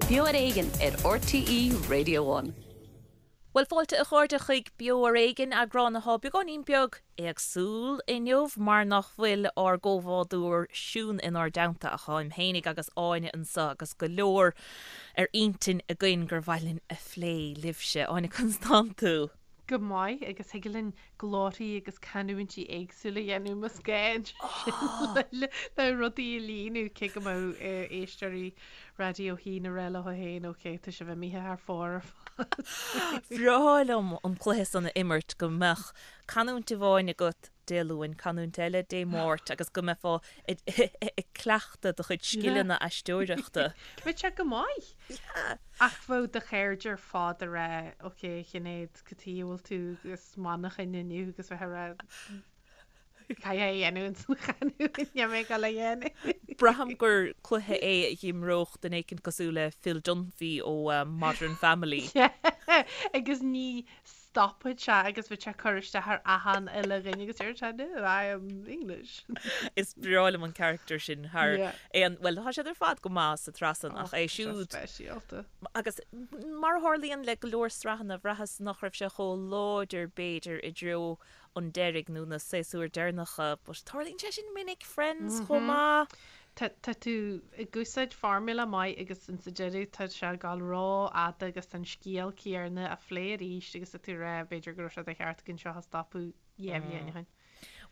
Beo ar Éigean ar RTÉ Radio One. Bhuel, fáilte a chairde chuig Beo ar Éigean, eagrán atá beagáinín beag éagsúil inniu mar nach bhfuil ár gcomhbhádóir Siún inár dteannta ach táim fhéinig agus Áine anseo agus go leor ar intinn againn gur mhaith linn a phlé libhse. Áine, conas tánn tú? Go maith, agus thig linn glórthaí agus canúintí éagsúla a dhéanamh más gá ansin le rudaí a líonadh, cé go mbeadh éisteoirí Raidió a hAon ag rá leo féin, ok, tá sibh imithe thar fóir ar fad. Bhreá liom an cluiche san a imirt, go mbeadh canúint amháin agat Dé Luain, canúint eile Dé Máirt agus go mbeifeá ag cleachtadh do chuid scileanna aisteoireachta. Bheadh sé go maith! Ach bheadh do chairde ar fad ag rá, ok, a Shinéad, cad chuige a bhfuil tú as Manchain inniu agus bheith ag rá, caithfidh é a dhéanamh ins an chanúint, níl mé ag dul a dhéanamh. Braithim gur cluiche é a dh'imreodh duine éicint cosúil le Phil Dunphy ó Modern Family. Agus ní stopfadh sé agus bheadh sé ag cur isteach ar achan uile dhuine agus deir sé no, I am English. Is breá liom an character sin thar aon, bhuel tá siad ar fad go maith sa tsraith san ach é siúd. Speisialta. Agus mar a tharlaíonn le go leor sraitheanna, bhraitheas nach raibh sé chomh láidir b'fhéidir i dtreo an deiridh nó na séasúir deireanacha but tarlaíonn sé sin minic, Friends chomh maith. Tá tú ag úsáid formula maith agus insa deireadh tá sé ag dul rófhada agus tá an scéal céanna á phlé arís agus tá tú ag rá b'fhéidir go raibh sé de cheart againn seo a stopadh 2 bhliain ó shin.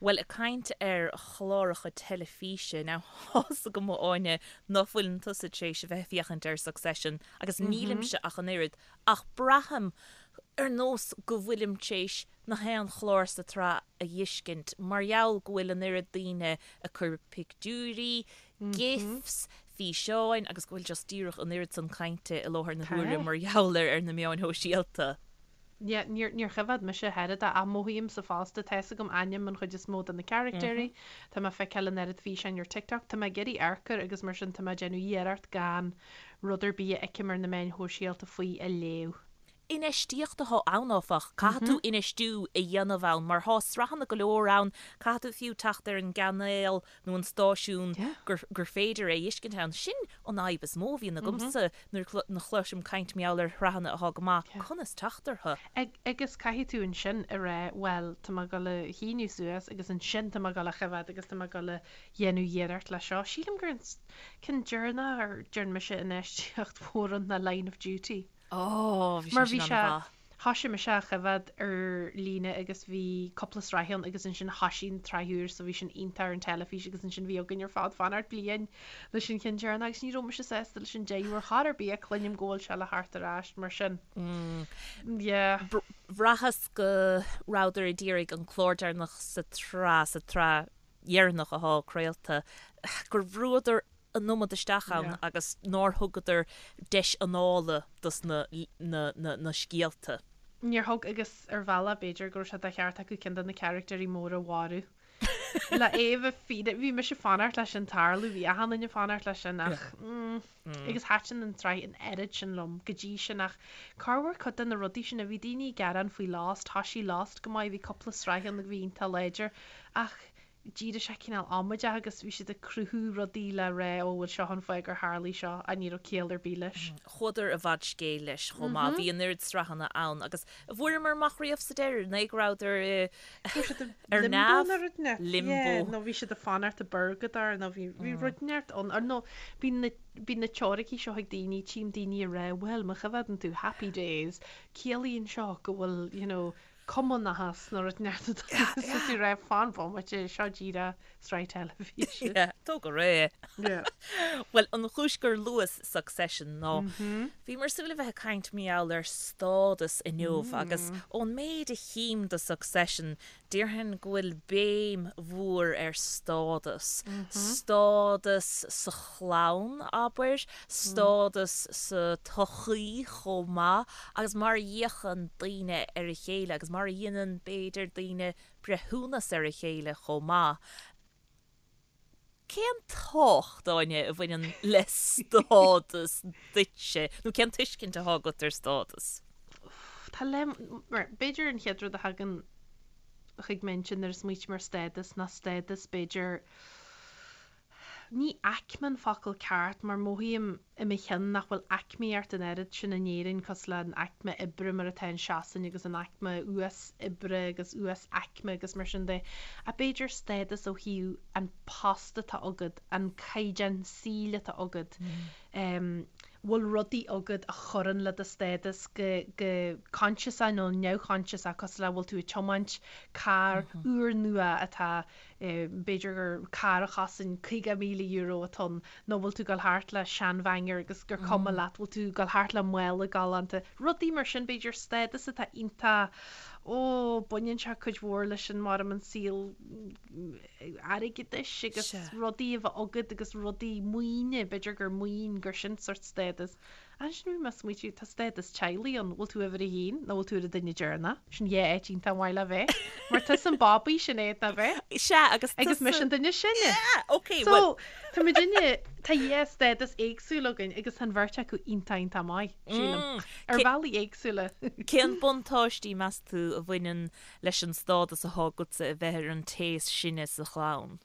Bhuel, ag caint ar chláracha teilifíse, now tá's agam a Áine ná fuileann tusa tar éis a bheith ag féachaint ar Succession agus nílimse ach an oiread ach braithim ar nós go bhfuilim tar éis na haon chlár sa tsraith a dh'fheiscint mar gheall go bhfuil an oiread daoine ag cur pictiúirí, gifs, físeáin agus go bhfuil just díreach an oiread san cainte i láthair na huaire mar gheall air ar na meáin shóisialta. Yeah, níor, níor choimhéad mise ach oiread é ach mothaímse fosta, tá's agam ainm an chuid is mó de na caractéirí, tá mé ag feiceáil an oiread físeáin ar TikTok, tá mé ag iarraidh amharc air agus mar sin tá mé ag déanamh iarracht gan rud ar bith a fheicim ar na meáin shóisialta faoi a léamh. Infheistíocht atá ann, áfach. Caithfidh tú infheistiú a dhéanamh ann mar thá sraitheanna go leor ann, caithfidh tú fiú teacht ar an gcainéal nó an stáisiún gur féidir é a fheiscint ann. Sin an fhadhb is mó a bhíonn agamsa nuair a chloisim caint mar gheall ar shraitheanna athá go maith, conas teacht orthu? Agus caithfidh tú ansin a rá, bhuel, tá mé ag dul a shíniú suas agus ansin tá mé ag dul a choimhéad agus tá mé ag dul a dhéanamh iarracht leis seo. Sílim gur an ceann deireanach ar dhearn mise infheistíocht mhór ann ná Line of Duty. Ó, bhí sé sin an-mhaith. Thoisigh mise á choimhéad ar líne agus bhí cúpla sraith ann agus ansin thoisigh an tsraith úr so bhí sin iontach ar an teilifís agus ansin bhí againn ar fad fanacht bliain leis an cheann deireanach agus ní raibh mise sásta leis an deireadh ar chor ar bith ach cluinim go bhfuil sé le theacht ar ais mar sin. Yeah. Bhraitheas go rabhadar ag iarraidh an clár deireanach sa tsraith, sa tsraith dheireanach athá craolta, gur bhrúadar an iomad isteach ann agus nár thugadar deis anála dos na na scéalta. Níor thug agus ar bhealach b'fhéidir go raibh sé de cheart acu ceann de na caractéirí móra a mharú. Le é a bheith fíor, bhí mise ag fanacht leis sin tarlú, bhí achan duine ag fanacht leis sin ach mm, agus thaitin an tsraith an oiread sin liom go dtí sin ach corruair cuid de na rudaí sin a bhí daoine ag gearán faoi Lost, thoisigh Lost go maith, bhí cúpla sraith ann a bhí iontach láidir ach d'éirigh sé cineál amaideach agus bhí siad ag cruthú rudaí le rá ó bhuel seo an fáth gur tharlaigh seo ach ní raibh ciall ar bith leis. Chuadar i bhfad scéil leis chomh maith. Bhí an oiread sraitheanna ann agus an bhfuaireamar amach riamh sa deireadh an é go rabhadar i Bhí siad i ar limbo neamh? nó rud inteacht. Limbo. Yeah, nó bhí siad ag fanacht i bpurgadóir nó bhí bhí rud inteacht ann or nó bhí na bhí na teoiricí seo ag daoine, tchím daoine ag rá bhuel má choimhéadann tú Happy Days ciallaíonn seo go bhfuil you know cumannachas nó rud inteacht tá tú ag rá fan bomaite seo díreach sraith teilifíse. Yeah, tóg ar é. Yeah. Bhuel, an chúis gur luas Succession ná bhíomar ag súil a bheith ag caint mar gheall ar stádas inniu agus ón méid a chím de Succession déarfainn go bhfuil béim mhór ar stádas. Stádas sa chlann, abair, stádas sa tsochaí chomh maith agus mar a fhéachann daoine ar a chéile agus mar a dhéanann, b'fhéidir, daoine breithiúnas ar a chéile chomh maith. Cén tábhacht, Áine, a bhaineann le stádas duitse nó cén tuiscint atá agat ar stádas? Tá le, mar, b'fhéidir an chéad rud a thagann chuig m'intinn nuair a smaoiním ar stádas ná stádas, b'fhéidir, ní aicme an focal ceart mar mothaím i mo chionn nach bhfuil aicmíocht an oiread sin in Éirinn cosúil le an aicme oibre mar atá in Sasain agus an aicme uas oibre agus uas aicme agus mar sin de. Ach b'fhéidir stádas ó thaobh an post atá agat, an caighdeán saoil atá agat, bhfuil rudaí agat a chuireann le do stádas go go coinsiasach nó neamhchoinsiasach cosúil le bhfuil tú ag tiomáint carr úrnua atá b'fhéidir gur carr a chosain €50,000 atá ann nó bhfuil tú ag dul thart le seanbhanger agus gur cuma leat, bhfuil tú ag dul thart le mála galánta, rudaí mar sin, b'fhéidir stádas atá iontach, ó, baineann sé cuid mhór leis an mar an saol airgeadais agus rudaí a bheith agat agus rudaí maoine, b'fhéidir gur maoin, gur sin sort stádas. Ansin bhí mé ag smaoitiú, tá stádas teaghlaigh ann, bhfuil tú uimhir a haon nó bhfuil tú ar an duine deireanach? Sin dhá áit iontach maith le bheith. Mar tusa an babaí sin é ná bheith. Sea, agus Agus mise an duine is sine. Yeah, ok, well. So, tá muidinne, tá dhá stádas éagsúil againn agus tá an bheirt acu iontach iontach maith, sílim. Ar bhealaí éagsúla. Cén buntáistí, meas tú, a bhaineann leis an stádas atá agatsa a bheith ar an té is sine sa chlann?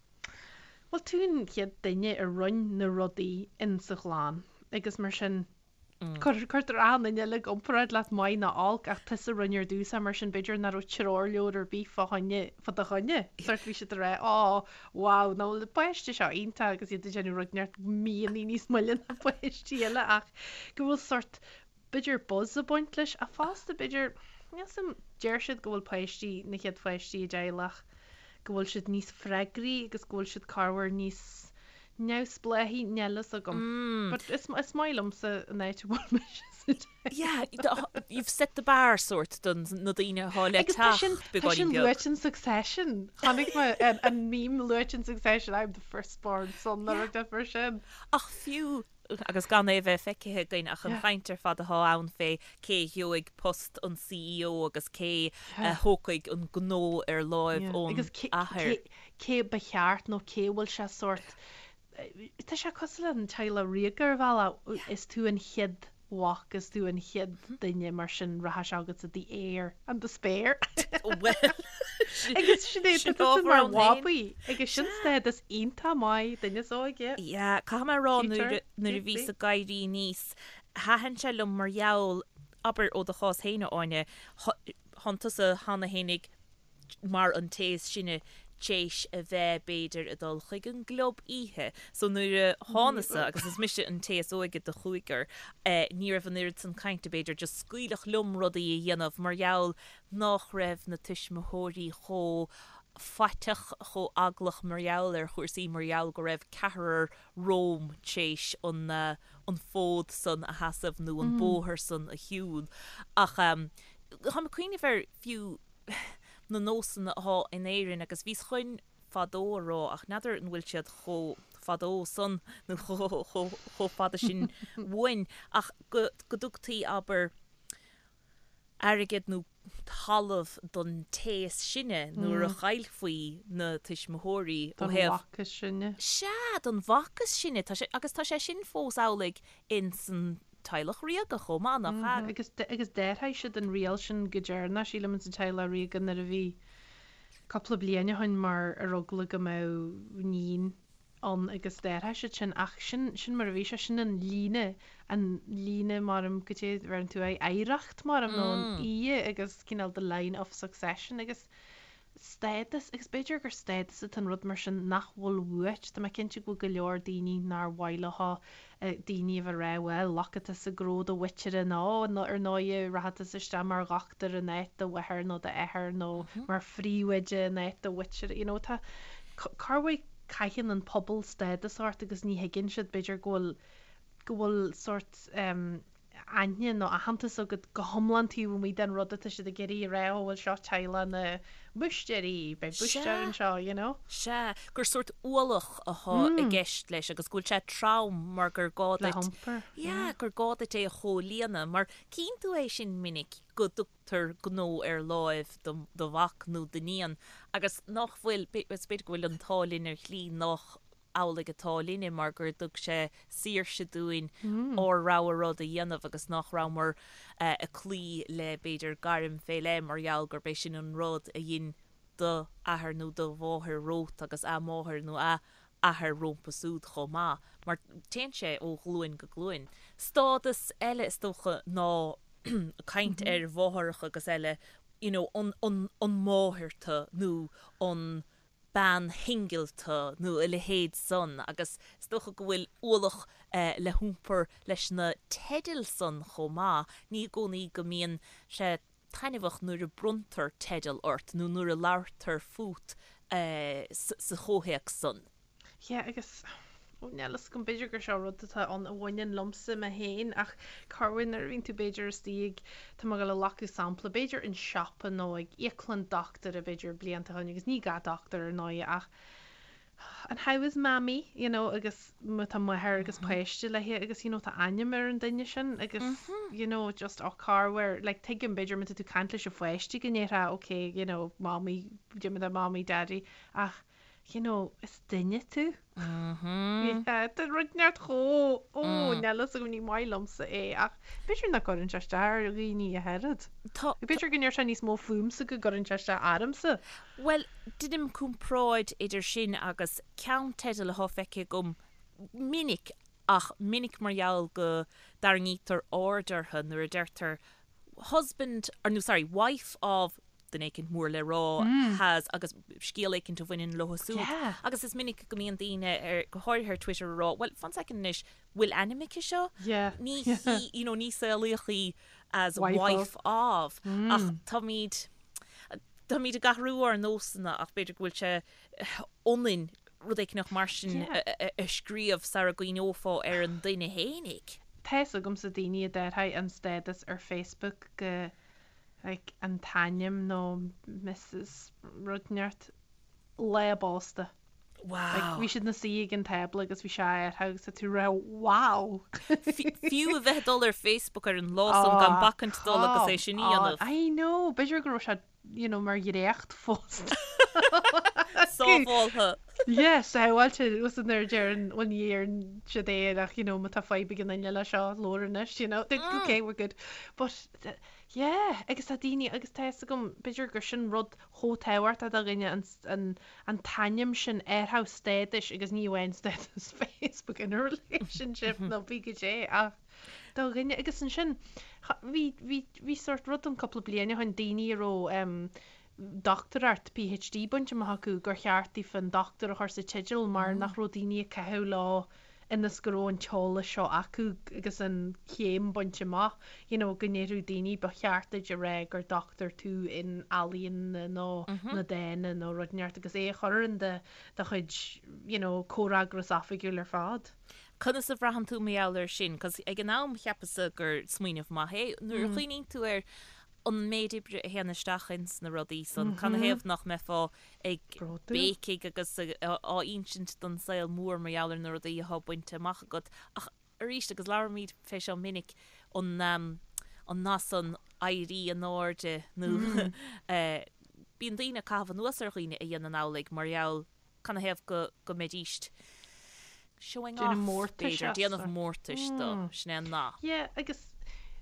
Bhuel, tú an chéad duine a rinne na rudaí in sa chlann agus mar sin cuirtear achan duine eile i gcomparáid leat maith nó olc ach tusa a rinne ar dtús é mar sin b'fhéidir nach raibh treoirleabhar ar bith fá choinne, fá do choinne. Sort bhí siad ag rá oh wow nach bhfuil an páiste seo iontach agus iad ag déanamh rud inteacht míonna níos moille ná páistí eile ach go bhfuil sort b'fhéidir buzz ag baint leis ach fosta b'fhéidir, níl 's a'm, deir siad go bhfuil páistí, na chéad pháistí i dteaghlach, go bhfuil siad níos freagraí agus go bhfuil siad corruair níos neamhspleáichí, níl fhios agam. But is, is maith liomsa an áit a bhfuil mise sa teaghlach. Yeah, you've set the bar sort don na daoine atá le Agus tá sin, teacht tá sin beagáinín beag. luaite in Succession. Chonaic mé an, an meme luaite in Succession, I'm the firstborn son nó rud mar sin. Ach fiú agus gan é a bheith feicthe againn ach an chaint ar fad atá ann fé cé a gheobhaidh post an CEO agus cé a thógfaidh an gnó ar láimh ón Agus athair. cé ba cheart nó cé bhfuil sé sórt, tá sé cosúil le an teaghlach ríoga ar bhealach, is tú an chéad mhac, is tú an chéad duine mar sin rachaidh sé agatsa the heir and the spare. Bhuel, Agus sin é, sin tá tusa ábhar mar ann féin. bhabaí agus sin stádas iontach maith duine is óige. Yeah, caithfidh mé a rá Future, nuair a nuair a bhíos cutesy. ag éirí aníos, thaitin sé liom mar gheall, abair ó do chás féin a Áine, thánn tusa cheana fhéinig mar an té is sine t'éis a bheith, b'fhéidir, ag dul chuig an gclub oíche. So nuair a thánasa, agus is mise an té is óige de chúigear, ní raibh an oiread san cainte, b'fhéidir, just scaoileadh liom rudaí a dhéanamh mar gheall nách raibh na tuismitheoirí chomh faiteach, chomh eaglach mar gheall ar chúrsaí, mar gheall go raibh ceathrar romham t'éis an, an fód san a sheasamh nó an bóthar san a shiúl. Ach táim ag cuimhneamh ar fiú, na nósanna athá in Éirinn agus bhíos chun fadó a rá ach n'fheadar an bhfuil siad chomh fadó san nó chomh fada sin uainn ach go dtugtaí, abair, airgead nó talamh don té is sine nuair a chaillfí na tuismitheoirí ó thaobh. Don mhac is sine. Sea, don mhac is sine. Tá sé, agus tá sé sin fós amhlaidh ins an teaghlach ríoga chomh maith, nach ea? Agus agus d'athraigh siad an riail sin go deireanach, sílim, ins an teaghlach ríoga nuair a bhí cúpla bliain ó shin mar ar eagla go mbeadh níon ann agus d'athraigh siad sin ach sin sin mar a bhí sé, sin an líne, an líne mar go dté bheireann tú aghaidh oidhreacht mar nó an fhia agus cineál the line of succession agus stádas, agus b'fhéidir gur stádas atá an rud mar sin nach bhfuil uait, tá mé cinnte go bhfuil go leor daoine nár mhaith leo daoine a bheith ag rá bhuel, glacfaidh tusa gnó do mhuintire nó ar ndóigh rachaidh tusa isteach mar dhochtúir in áit do mháthar nó d'athar nó mar phríomhoide in áit do mhuintire, you know tá, corruair caitheann an pobal stádas ort agus ní thuigeann siad b'fhéidir go bhfuil, go bhfuil sórt eh. aithne nó aitheantas agat go hiomlán taobh amuigh den rud atá siad ag iarraidh a rá, ó bhuel seo teaghlach na mbúistéirí, beidh búistéir anseo, you know. Sea, gur sórt ualach athá i gceist leis agus go bhfuil sé trom mar gur gá Le duit, hiompar, yeah, yeah. gur gá duit é a chomhlíonadh mar cíonn tú é sin minic go dtugtar gnó ar láimh do do mhac nó d'iníon agus nach bhfuil, is b'fhéidir go bhfuil an t-ádh linn ar shlí nach amhlaidh atá linne mar gur dtug sé saoirse dúinn ár rogha rud a dhéanamh agus nach rabhamar ag cloí le b'fhéidir gairm fé leith mar gheall gurb é sin an rud a dhein do athair nó do mháthair romhat agus a máthair nó a. athair rómpa súd chomh maith, mar téann sé ó ghlúin go glúin. Stádas eile is dócha ná caint ar mháthaireacha agus eile, you know, an, an, an máthair tu nó an bean shingil tu nó a leithéid san agus is dócha go bhfuil ualach le hiompar leis na teidil san chomh maith. Ní i gcónaí go mbíonn sé taitneamhach nuair a bronntar teideal ort nó nuair a labhartar fút sa chomhthéacs san. Yeah agus ó níl fhios agam b'fhéidir gur seo rud atá ann a bhaineann liomsa mé féin ach corruair nuair a bhíonn tú b'fhéidir istigh ag, tá mé ag dul a ghlacadh sampla, b'fhéidir an siopa nó ag íoclann dochtúra b'fhéidir blianta ó shin agus ní gach dochtúir ar ndóigh ach and how is mammy you know agus má tá máthair agus páiste léi agus you know tá ainm ar an duine sin agus you know just oh corruair like tuigim b'fhéidir má tá tú caint leis an pháiste go ndéarfá okay you know mommy déarfaidh mommy daddy ach you know is duine tú yeah tá rud inteacht chomh ó níl fhios agam ní maith liomsa é ach b'fhéidir nach gcuireann sé isteach ar dhaoine ach oiread. Tá B'fhéidir go ndeir sé níos mó fúmsa go gcuireann sé isteach ormsa. Bhuel, deinim comparáid idir sin agus ceannteideal atá feicthe agam minic, ach minic mar gheall go dtarraingítear aird orthu nuair a deirtear husband, or no, sorry, wife of duine éicint mór le rá has agus scéal éicint a bhaineann leo súd. Agus is minic go mbíonn daoine, ar, go háirithe ar Twitter, ag rá, bhuel, fan soicind anois, bhfuil ainm aici seo? Ní hí, you know, ní saolaíodh í as wife of. Ach táimid, Táimid ag athrú ár nósanna ach b'fhéidir go bhfuil sé ionainn rud éicneach mar sin a scríobh sara gcuimhneofá ar an duine fhéinig. Tá fhios agamsa daoine a d'athraigh an stádas ar Facebook go like an t-ainm nó Mrs rud inteacht lá a bpósta. Wow. Like, bhí siad ina suí ag an tábla agus bhí sé athraithe agus tá tú ag rá wow! Fiú a bheith ag dul ar Facebook ar an lá san gan bacaint dul agus é sin a dhéanamh. I know! B'fhéidir go raibh sé, you know, mar dhréacht fós. Sábháltha. Yeah, sábháilte. Agus nuair a deireann, bhuel ní deireann siad é ach, you know, má tá fadhb ag an duine le seo, labhair anois, you know. Okay, we're good. But, yeah, agus tá daoine, agus tá fhios agam, b'fhéidir gur sin rud chomh tábhachtach do dhuine an, an, an t-ainm sin athrú stádais agus ní amháin stádas Facebook in a relationship nó pé goidé ach do dhuine agus ansin bhí, bhí, bhí sórt rud ann cúpla bliain ó shin daoine a raibh em dochtúireacht PhD bainte amach acu gur cheart daofa an dochtúir a chur sa teideal mar nach raibh daoine ag caitheamh leo ionas go raibh an t-eolas seo acu agus an chéim bainte amach, you know, go ndéarfadh daoine ba cheart duit a rá gur dochtúir tú in ealaíona nó na dána nó rud inteacht agus é a chur in do do chuid, you know, comhfhreagras oifigiúil ar fad. Conas a bhraitheann tú mar gheall air sin? 'Cause ag an am cheapas-sa gur smaoineamh maith é. Nuair a chuimhníonn tú ar an méid oibre a théann isteach ins na rudaí san, canathaobh nach mbeifeá ag béicigh agus á insint don saol mór mar gheall ar na rudaí atá bainte amach agat. Ach arís, agus labhraímid fé seo minic, an an nath san éirí in airde nó bíonn daoine ag caitheamh anuas ar dhaoine a dhéanann amhlaidh mar gheall canathaobh go go mbeidíst showing off, b'fhéidir, déanamh mórtais dó, sin é an nath. Yeah, agus,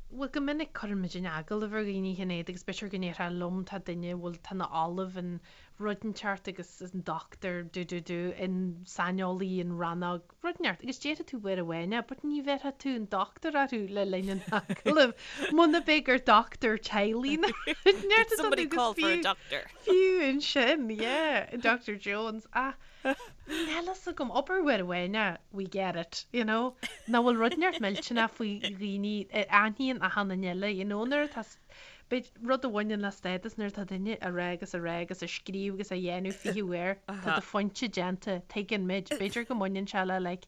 bhuel, go minic cuireann muid in agallamh ar dhaoine, a Shinéad, agus b'fhéidir go ndéarfá liom, tá duine, bhuel, tá ina ollamh in rud inteacht agus is an dochtúir, do do do, in saineolaí in rannóg, rud inteacht, agus déarfaidh tú uair amháin é, but ní bhéarfaidh tú an dochtúir orthu le linn an agallaimh, muna b'é gur dochtúir teaghlaigh nó rud inteacht atá Somebody call for a doctor. Fiú ansin, yeah, Doctor Jones, ach níl fhios agam, abair uair amháin é, we get it, you know, nach bhfuil rud inteacht millteanach faoi dhaoine a aithníonn achan duine eile, you know, nuair atá, b'fhéidir, rud a bhaineann le stádas nuair atá duine a rá agus a rá agus a scríobh agus a dhéanamh 20 uair, tá do phointe déanta, tuigeann muid, b'fhéidir go mbaineann sé le like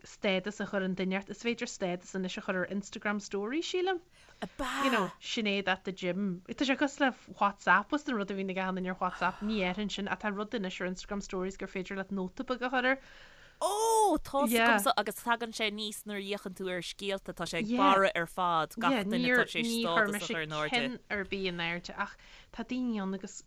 stádas a chur an duine ort, is féidir stádas anois a chur ar Instagram story, sílim. Ab ea? You know, Sinéad at the gym. Tá sé cosúil le WhatsApp, was an rud a bhíonn ag achan duine ar WhatsApp, ní dhéarfainn sin, ach tá rud anois ar Instagram stories gur féidir leat nóta beag a chur air. Ó, tá's agamsa, agus tagann sé aníos nuair a fhéachann tú ar scéalta, tá sé ag barra ar fad, gach duine atá tar éis stádas a chur in airde. Ní chuir mise ceann ar bith in airde, ach tá daoine ann agus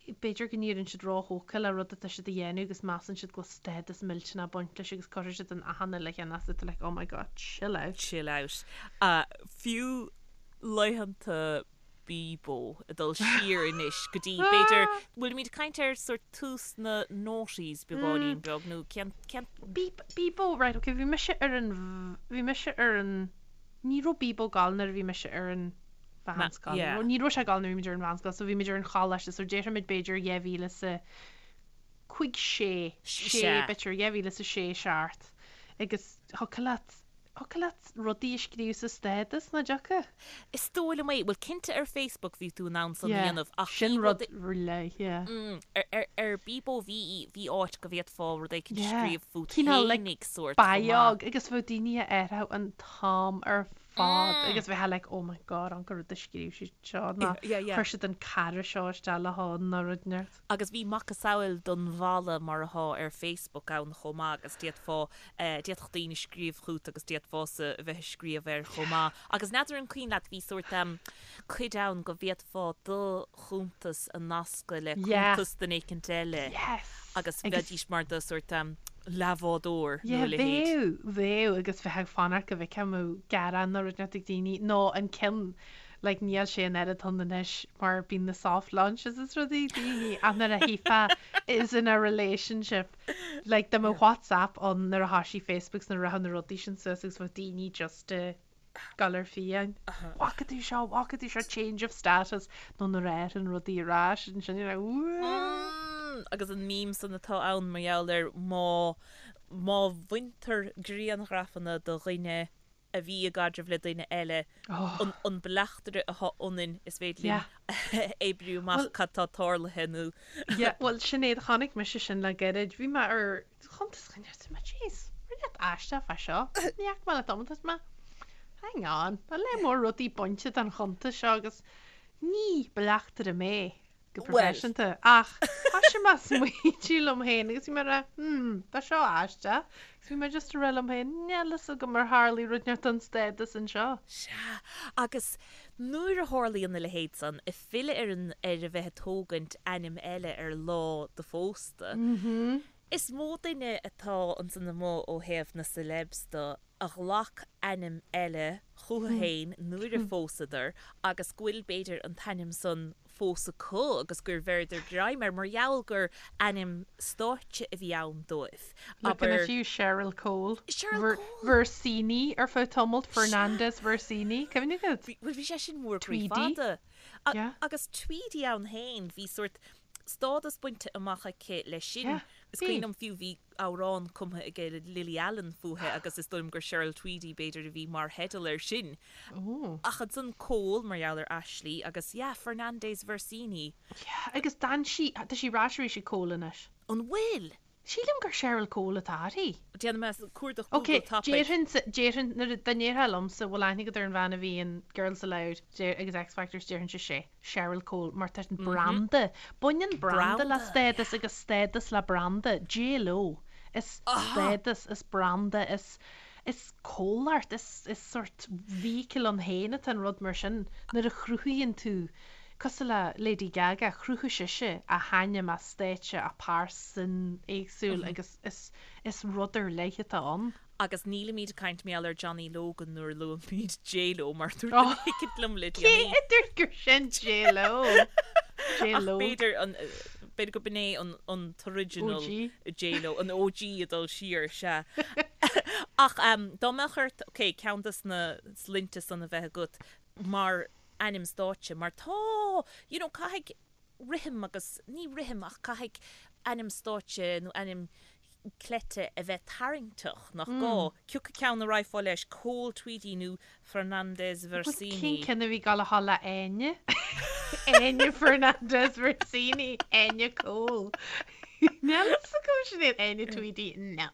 b'fhéidir go n-éiríonn siad róthógtha le rud atá siad a dhéanamh agus measann siad go bhfuil stádas millteanach ag baint leis agus cuirfidh siad in achan uile cheann as it like oh my god, chill out. Chill out. Fiú laethanta. Bebo ag dul siar anois go dtí b'fhéidir, bhfuilimid ag caint ar sort tús na noughties beagáinín beag nó cén, cén. Bebo, right, ok, bhí mise ar an, bhí mise ar an, ní raibh Bebo ag gabháil nuair a bhí mise ar an mheánscoil, Yeah. ní raibh sé ag gabháil nuair a bhí muid ar an mheánscoil, so bhí muid ar an choláiste, so déarfaimid b'fhéidir 2000 is a 5, 6, 6 Sea. b'fhéidir 2006, 7 agus thiocfadh leat, thiocfadh leat rudaí a scríobh sa stádas, nach dtiocfadh? Is dóigh liom é. Bhuel, cinnte ar Facebook bhí tú in ann san a Yeah, dhéanamh ach sin bhí rud rud, ar leith, yeah. mm, ar, ar, ar Bebo bhí, bhí áit go bhféadfá rud éicint a Yeah, scríobh fút cineál like fhéinig sórt chomh maith. biog agus bheadh daoine a athrú an t-am ar fad agus bheifeá like oh my god an rud a scríobh siad seo nó chuir siad an cara seo isteach le hon nó rud inteacht. Agus bhí macasamhail don bhalla mar athá ar Facebook ann chomh maith agus d'fhéadfá, d'fhéadfadh daoine scríobh chút agus d'fhéadfása a bheith ag scríobh air chomh maith. Agus n'fheadar an cuimhin leat bhí sórt cuid ann go bhféadfá do chuntas a nascadh le cuntas duine éicint eile agus bheidís mar do sórt leathbhádóir nó a leithéid. Bheadh, bheadh agus bheifeá ag fanacht go bhfeicfeá an mbeadh gearán nó rud inteacht ag daoine nó an ceann like níl sé an oiread ann anois mar bíonn na soft launches is rudaí daoine ach nuair a chífeá is in a relationship like dá mbeadh WhatsApp ann nuair a thoisigh Facebook 's nuair a rachadh na rudaí sin suas agus bheadh daoine just a gabháil ar fiáin. Bhfaca tú seo, bhfaca tú seo, change of status, nó nuair a athraíonn rudaí ar ais, ansin you're like, Ooh. Agus an meme san atá ann mar gheall ar má, má bhaintear grianghrafanna de dhuine a bhí i gcaidreamh le duine eile, an, an bleachtaire atá ionainn, is féidir linn a oibriú amach cad tá tarlaithe nó. Yeah, bhuel sin é, chonaic mise sin le gairid, bhí mé ar chuntas dhuine arsa mé, jeez, rud inteacht aisteach fá seo, ní fhaca mé le tamall, arsa mé, hang on, tá lear mór rudaí bainte den chuntas seo agus ní bleachtaire mé go proifisiúnta ach thoisigh mé ag smaointiú liom féin agus bhí mé ag rá, hmm, tá seo aisteach agus bhí mé just ag rá liom féin, níl fhios agam ar tharlaigh rud inteacht don stádas anseo. Sea, agus nuair a tharlaíonn a leithéid san, ag filleadh ar an, ar a bheith ag tógaint ainm eile ar lá do phósta, Is mó duine atá ansan amuigh ó thaobh na celebs de a ghlac ainm eile chucu féin nuair a phósadar agus go bhfuil, b'fhéidir, an t-ainm san fós acu agus gur bheireadar greim air mar gheall gur ainm stáitse a bhí ann dóibh. Looking Abair. at you, Cheryl Cole. Cheryl Cole! Versini ar feadh tamaill, Fernandez Versini, cuimhin agat? Bhuel, bhí sé sin mór croí Tweedy. fada. Yeah. Agus Tweedy ann féin, bhí sórt stádas bainte amach aici leis sin. Yeah, Is bhí. cuimhin liom fiú bhí amhrán cumtha aige Lily Allen fúithi agus is dóigh liom gur Cheryl Tweedy b'fhéidir a bhí mar theideal air sin. Ooh. Ach ansan Cole mar gheall ar Ashley agus yeah, Fernandez Versini. Yeah, agus d'fhan sí, tá sí ar ais arís ag Cole anois. An bhfuil? Sílim gur Cheryl Cole atá uirthi. Déanfaidh mé cuardach Ok, Google tapaidh. déarfainnse, déarfainn, nuair a, dá ndéarfá liomsa, bhfuil aithne agat ar an bhean a bhí in Girls Aloud deir, agus X Factor, déarfainnse sé, Cheryl Cole, mar tá an branda, baineann branda le Branda, stádas agus stádas le branda, J Lo, is stádas, is branda, is, is comhlacht, is, is sort vehicle ann féin atá an rud mar sin, nuair a chruthaíonn tú, Cosúil le Lady Gaga, chruthaigh sise a hainm, a stáitse, a pearsan éagsúil agus is is rud ar leith atá ann. Agus nílimid ag caint mar gheall ar Johnny Logan nuair a luaimid J-Lo mar dúirt duine éicint liom le Cé déanaí. a dúirt gur sin J-Lo? Ach J-Lo. b'fhéidir an b'fhéidir go b'in é an an t-original OG. J-Lo, an OG ag dul siar, sea. Ach dá mbeadh ort, ok, ceann des na sloinnte san a bheith agat mar ainm stáitse mar tá, you know, caithfidh rithim agus, ní rithim ach caithfidh ainm stáitse nó ainm cleite a bheith tarraingteach, nach gá? Cioca ceann a raghfá leis, Cole Tweedy nó Fernandez Bhuel, Versini? cén ceann a bhí ag gabháil a dhul le Áine? Áine Fernandez Versini, Áine Cole. Níl fhios agam sin iad, Áine Tweedy, no.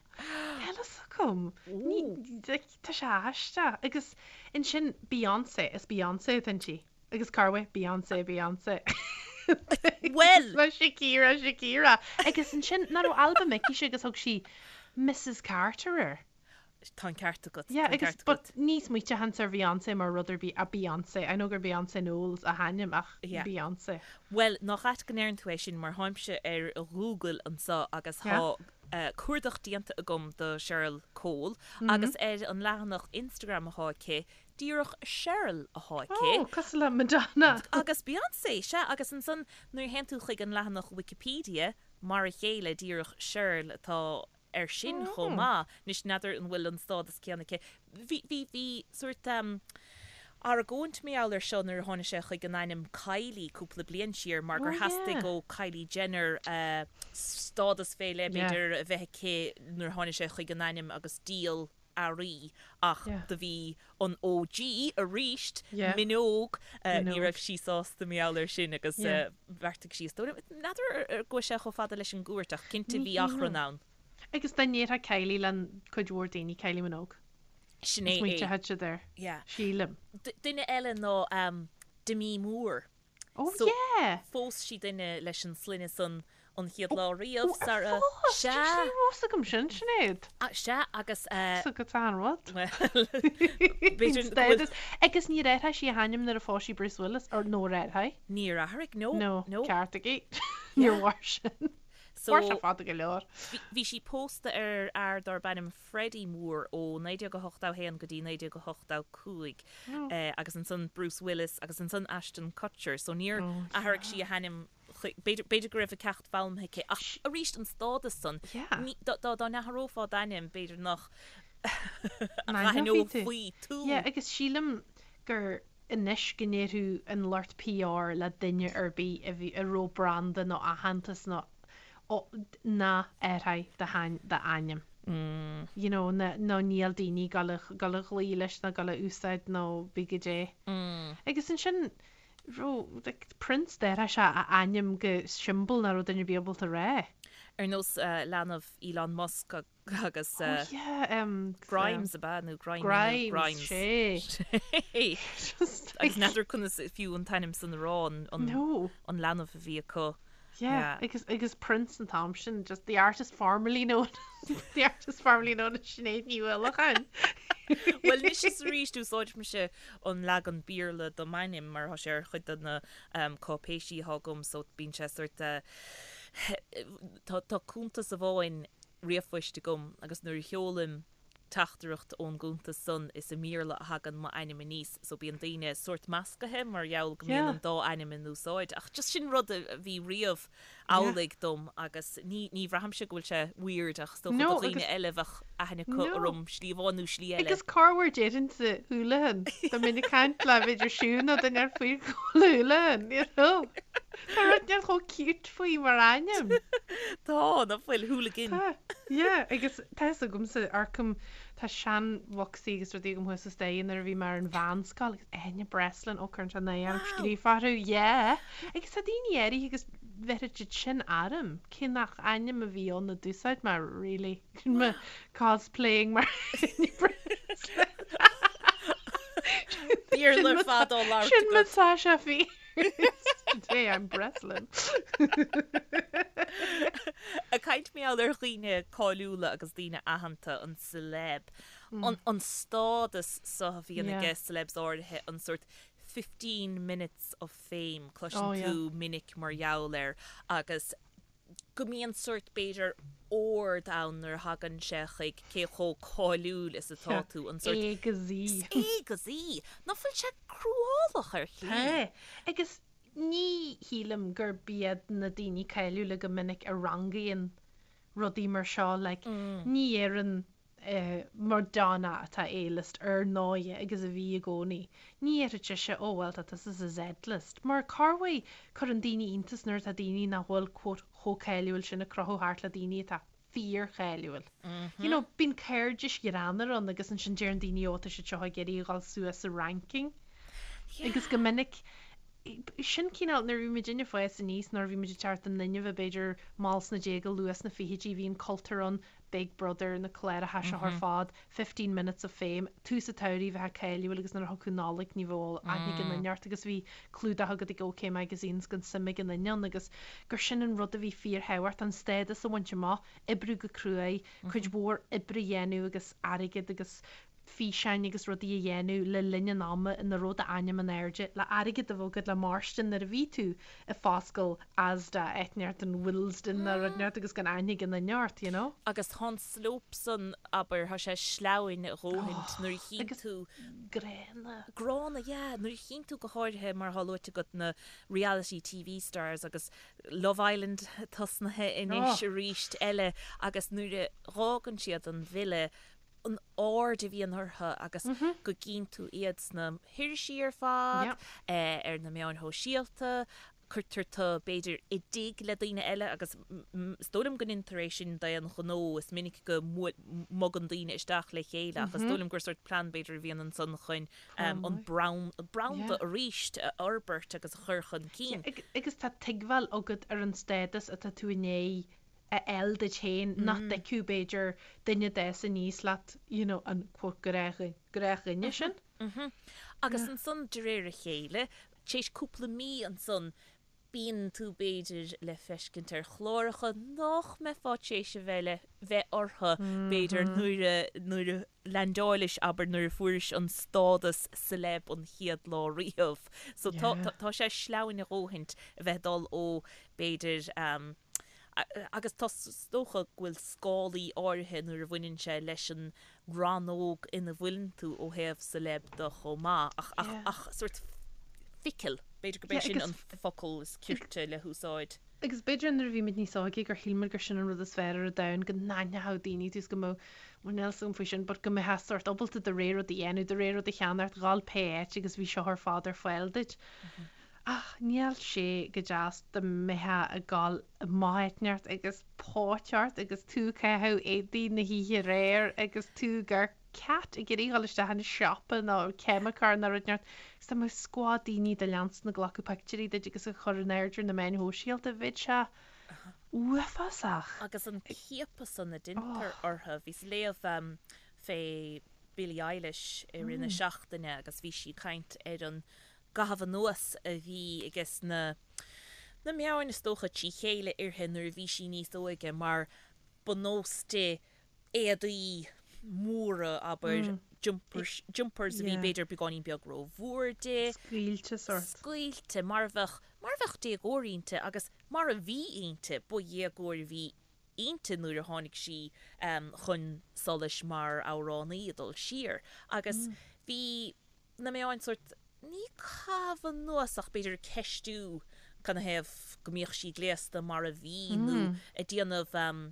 Níl fhios agam. Ní, like, Tá sé aisteach. Agus ansin Beyoncé, is Beyoncé atá inti. Agus cá bhfuil Beyoncé, Beyoncé. Bhuel! Mar Shakira, Shakira. Agus ansin, nach raibh albam aici agus thug sí Mrs Carter air. Tá an ceart agat. Yeah, Tá an agus ceart but agat. ní smaoiteochainnse ar Bheyoncé mar rud ar bith, a Beyoncé. I know gur Beyoncé Knowles a hainm ach Yeah. Beyoncé. Bhuel, nach ait go ndeireann tú é sin mar tháimse ar Google anseo agus Yeah. thá. cuardach déanta agam do Cheryl Cole agus ar an leathanach Instagram athá aici, díreach Cheryl athá aici. Oh, cosúil le Madonna! Agus Beyoncé, sea, agus ansan nuair a théann tú chuig an leathanach Wikipedia, mar a chéile, díreach Cheryl atá air sin chomh maith. Anois, n'fheadar an bhfuil an stádas céanna aici. Bhí, bhí, bhí sórt argóint mar gheall air seo nuair a tháinig sé chuig an ainm Kylie cúpla bliain siar mar gur theastaigh ó Kylie Jenner stádas fé leith, b'fhéidir, a bheith aici nuair a tháinig sé chuig an ainm agus díol earraí ach do bhí an OG aríst, Minogue, ní raibh sí sásta mar gheall air sin agus bheartaigh sí is dóigh liom, n'fheadar ar ghabh sé chomh fada leis an gcúirt ach cinnte bhí achrann ann. Agus dá ndéarfá Kylie le cuid mhór daoine, Kylie Minogue. Sin é. Smaointeoidh siad air. Sílim. Duine eile ná Demi Moore. Oh yeah! Phós sí duine leis an sloinne san an chéad lá riamh, sara. Phós? Sea. Ní raibh fhios agam sin, Sinéad. Sea, agus. Fhios agat an rud. Bhuel, b'fhéidir go bhfuil. Agus níor athraigh sí a hainm nuair a phós sí Bruce Willis, or nó ar athraigh? Níor athraigh, no. No, ceart aici. Níor mhair sin. Mhair sé fada go leor. Bhí sí pósta ar fhear darb ainm Freddie Moore ó 1981 go dtí 1985 agus ansan Bruce Willis agus ansan Ashton Kutcher so níor athraigh sí a hainm b'fhéidir b'fhéidir go raibh a ceacht foghlamtha aici ach arís an stádas san dá dá n-athrófá d'ainm b'fhéidir nach n-aithneofaí tú. Yeah agus sílim gur anois go ndéarfadh an lucht PR le duine ar bith a bhí a raibh branda nó aitheantas nó ná athraigh d'ainm. You know, nó níl daoine ag gabháil a gabháil a ghlaoch leis nó gabháil a úsáid nó bí goidé. Agus ansin raibh like Prince d'athraigh sé a ainm go siombail nach raibh duine ar bith ábalta a rá. Ar nós leanbh Elon Musk agus Oh yeah, um, Grimes ab ea nó Grimy nó Grimes, Grimes. sé. Just Agus n'fheadar conas fiú an t-ainm san a rá an, an, No. an leanbh a bhí acu. Yeah, Yeah. agus, agus Prince an t-am sin, just the artist formerly known the artist formerly known as Sinéad Ní Uallacháin. Bhuel, anois is arís úsáidimse an leagan Béarla do m'ainm mar tá sé ar chuid de na um, cáipéisí atá agam so bíonn sé sort uh, tá, tá cuntas amháin ríomhphoist agam agus nuair a sheolaim teachtaireacht ón gcuntas san is i mBéarla a thagann m'ainm aníos so bíonn daoine sórt meascaithe mar gheall go mbíonn an dá ainm in úsáid ach just sin rud a bhí riamh amhlaidh dom agus ní ní bhraithimse go bhfuil sé weird ach is dócha do dhaoine eile bheadh aithne acu orm slí amháin nó slí eile. Agus corruair déarfainnse Houlihan dá mbeinn ag caint le b'fhéidir Siún nó duine ar faoi Houlihan, you know. Tá rud inteacht chomh cute faoi mar ainm. Tá, nach bhfuil, hooligan. Tá, yeah, agus tá fhios agamsa, amharcaim, tá seanbhocsaí agus rudaí agam thuas sa staighre nuair a bhí mé ar an mheánscoil agus Áine Breslin, ó cuireann sé náire orm scríofa orthu, yeah. Agus tá daoine áirithe agus bheirfead siad sin orm, cé nach ainm a bhí ann a d'úsáid mé really, mo cosplaying mar Áine Breslin. Béarla ar fad á labhairt Sin mo agat. Sasha Fierce. Today I'm Breslin. Ag caint mar gheall ar dhaoine cáiliúla agus daoine aitheanta, an celeb, an, an stádas so a bhíonn aige celebs áirithe, an sórt 15 minutes of fame, cloiseann tú minic mar gheall air agus go mbíonn sórt, b'fhéidir, ord ann nuair a thagann sé chuig cé chomh cáiliúil is atá tú, an sórt. A go Z. A go Z. Nach bhfuil sé cruálach ar shlí? Tá. Agus ní shílim gurb iad na daoine cáiliúla go minic a rangaíonn rudaí mar seo, like, ní dhéarfainn Madonna atá A-list ar ndóighe agus a bhí i gcónaí. Ní dhéarfadh sise oh well tá tusa sa Z-list mar corruair cuireann daoine iontas nuair atá daoine nach bhfuil quote chomh cáiliúil sin ag crochadh thart le daoine atá fíorcháiliúil. You know bíonn cairdis ghreannmhar ann agus ansin deireann daoine oh tá siad seo ag iarraidh a dhul suas sa ranking agus go minic sin cineál nuair a bhí muidinne ag fás aníos nuair a bhí muid ag teacht i ndoineamh b'fhéidir mall sna déaga luath sna fichidí bhí an cultúr ann Big Brother, na cláracha seo ar fad, 15 Minutes of Fame, tús an tsamhraidh bheifeá cáiliúil agus nuair a thiocfadh Nollaig ní bheadh aithne ag aon duine ort agus bhí clúdach agat ag OK Magazines gan suim ag aon duine ann agus gur sin an rud a bhí fíorthábhachtach, an stádas a bhaint amach, oibriú go cruaidh, cuid mhór oibre a dhéanamh agus airgead agus. físeáin agus rudaí a dhéanamh le linn an ama ina raibh d'ainm in airde, le airgead a bheith agat le mairstin nuair a bhí tú ag foscal Asda áit inteacht in Willesden nó rud inteacht agus gan aithne ag aon duine ort, you know. Agus tá an slope san, abair, tá sé sleamhain a dhóthaint nuair a chíonn tú. Gránna. Gránna, yeah. Nuair a chíonn tú go háirithe, mar atá luaite agat, na reality TV stars agus Love Island tosnaithe anois arís eile agus nuair a dh'fhágann siad an villa, an aird a bhíonn orthu agus go gcíonn tú iad sna hirisí ar fad, ar na meáin shóisialta, cuirtear tú, b'fhéidir, i dtigh le daoine eile agus is dóigh liom go ndeintear é sin d'aon ghnó, is minic go mbogann daoine isteach le chéile ach is dóigh liom gur sórt plean b'fhéidir a bhíonn ansan chun an branda arís a fhorbairt agus a chur chun cinn. Agus tá tuigbheáil agat ar an stádas atá tú i ndiaidh a fháil duit féin nach dtuigfeadh b'fhéidir duine a d'fhás aníos leat you know an quote gnáthdhuine sin. Agus ansan de réir a chéile, tar éis cúpla mí ansan, bíonn tú b'fhéidir le feiscint ar chláracha nach mbeifeá tar éis a bheith le bheith orthu b'fhéidir nuair a nuair a leaindeáilis abair nuair a fuairis an stádas celeb an chéad lá riamh. So tá tá sé sleamhain a dhóthaint a bheith ag dul ó b'fhéidir Agus tá, is dócha go bhfuil scálaí áirithe nuair a bhaineann sé leis an rannóg ina bhfuileann tú ó thaobh celeb de chomh maith, ach, ach, ach sórt fickle, b'fhéidir gurb é sin an focal is cirte le húsáid. Agus b'fhéidir nuair a bhí muid níos óige gur shíl muid gur sin an rud is fearr ar an domhan, go n-aithneodh daoine tú is go mbeadh, bhuel níl 'fhios agam faoi sin, but go mbeifeá sórt ábalta do rogha rud a dhéanamh, do rogha rud a cheannacht, dhul pé áit agus bhí seo ar fad ar fáil duit. Ach níl sé go deas dá mbeifeá ag gabháil amach áit inteacht agus póit ort agus tú ag caitheamh éadaí na hoíche aréir agus tú ag cat ag iarraidh dhul isteach in siopa nó ceimiceoir nó rud inteacht agus dá mbeadh scuad daoine do leanstan ag glacadh pictiúirí duit agus a chur in airde ar na meáin shóisialta, bheadh sé uafásach. Agus an ciapadh san a deintear orthu, bhíos ag léamh fé Billie Eilish i rith na seachtaine agus bhí sí ag caint ar an gcaitheamh anuas a bhí ages na na meáin is dócha trí chéile uirthi nuair a bhí sí níos óige mar ba nós di éadaí móra, abair, jumpers, jumpers a bhí b'fhéidir beagáinín beag rómhór di. Scaoilte sórt. Scaoilte, mar a bheadh, mar a bheadh déagóir inti agus mar a bhí inti, ba dhéagóir a bhí inti nuair a tháinig sí chun solais mar amhránaí ag dul siar agus bhí na meáin sórt, ní caitheamh anuas ach b'fhéidir ag ceistiú canathaobh go mbíodh sí gléasta mar a bhí nó ag déanamh,